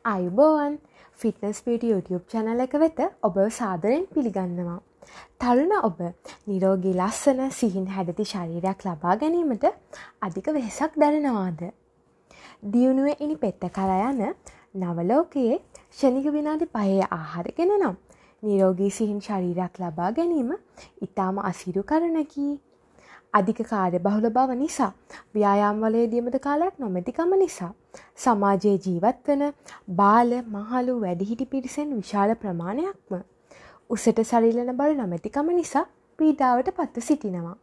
ආයුබෝවන් fitness beauty YouTube channel එක වෙත ඔබව සාදරයෙන් පිළිගන්නවා. තරුණ ඔබ නිරෝගී ලස්සන සිහින් හැඩති ශරීරයක් ලබා ගැනීමට අධික වෙහෙසක් දරනවාද? දියුණුවේ ඉනි පෙත්ත කරා යන නව ලෝකයේ ක්ෂණික විනාඩි 5 ආහාර ගෙන නම් නිරෝගී සිහින් ශරීරයක් ලබා ගැනීම ඉතාම අසීරු කරුණකි. අධික කාර්යබහුල බව නිසා ව්‍යායාම වල යෙදීමට කාලයක් නොමැතිකම නිසා සමාජයේ ජීවත් වන බාල මහලු වැඩිහිටි පිරිසෙන් විශාල ප්‍රමාණයක්ම උසට සරිලන බර නොමැතිකම නිසා පීඩාවට පත්ව සිටිනවා.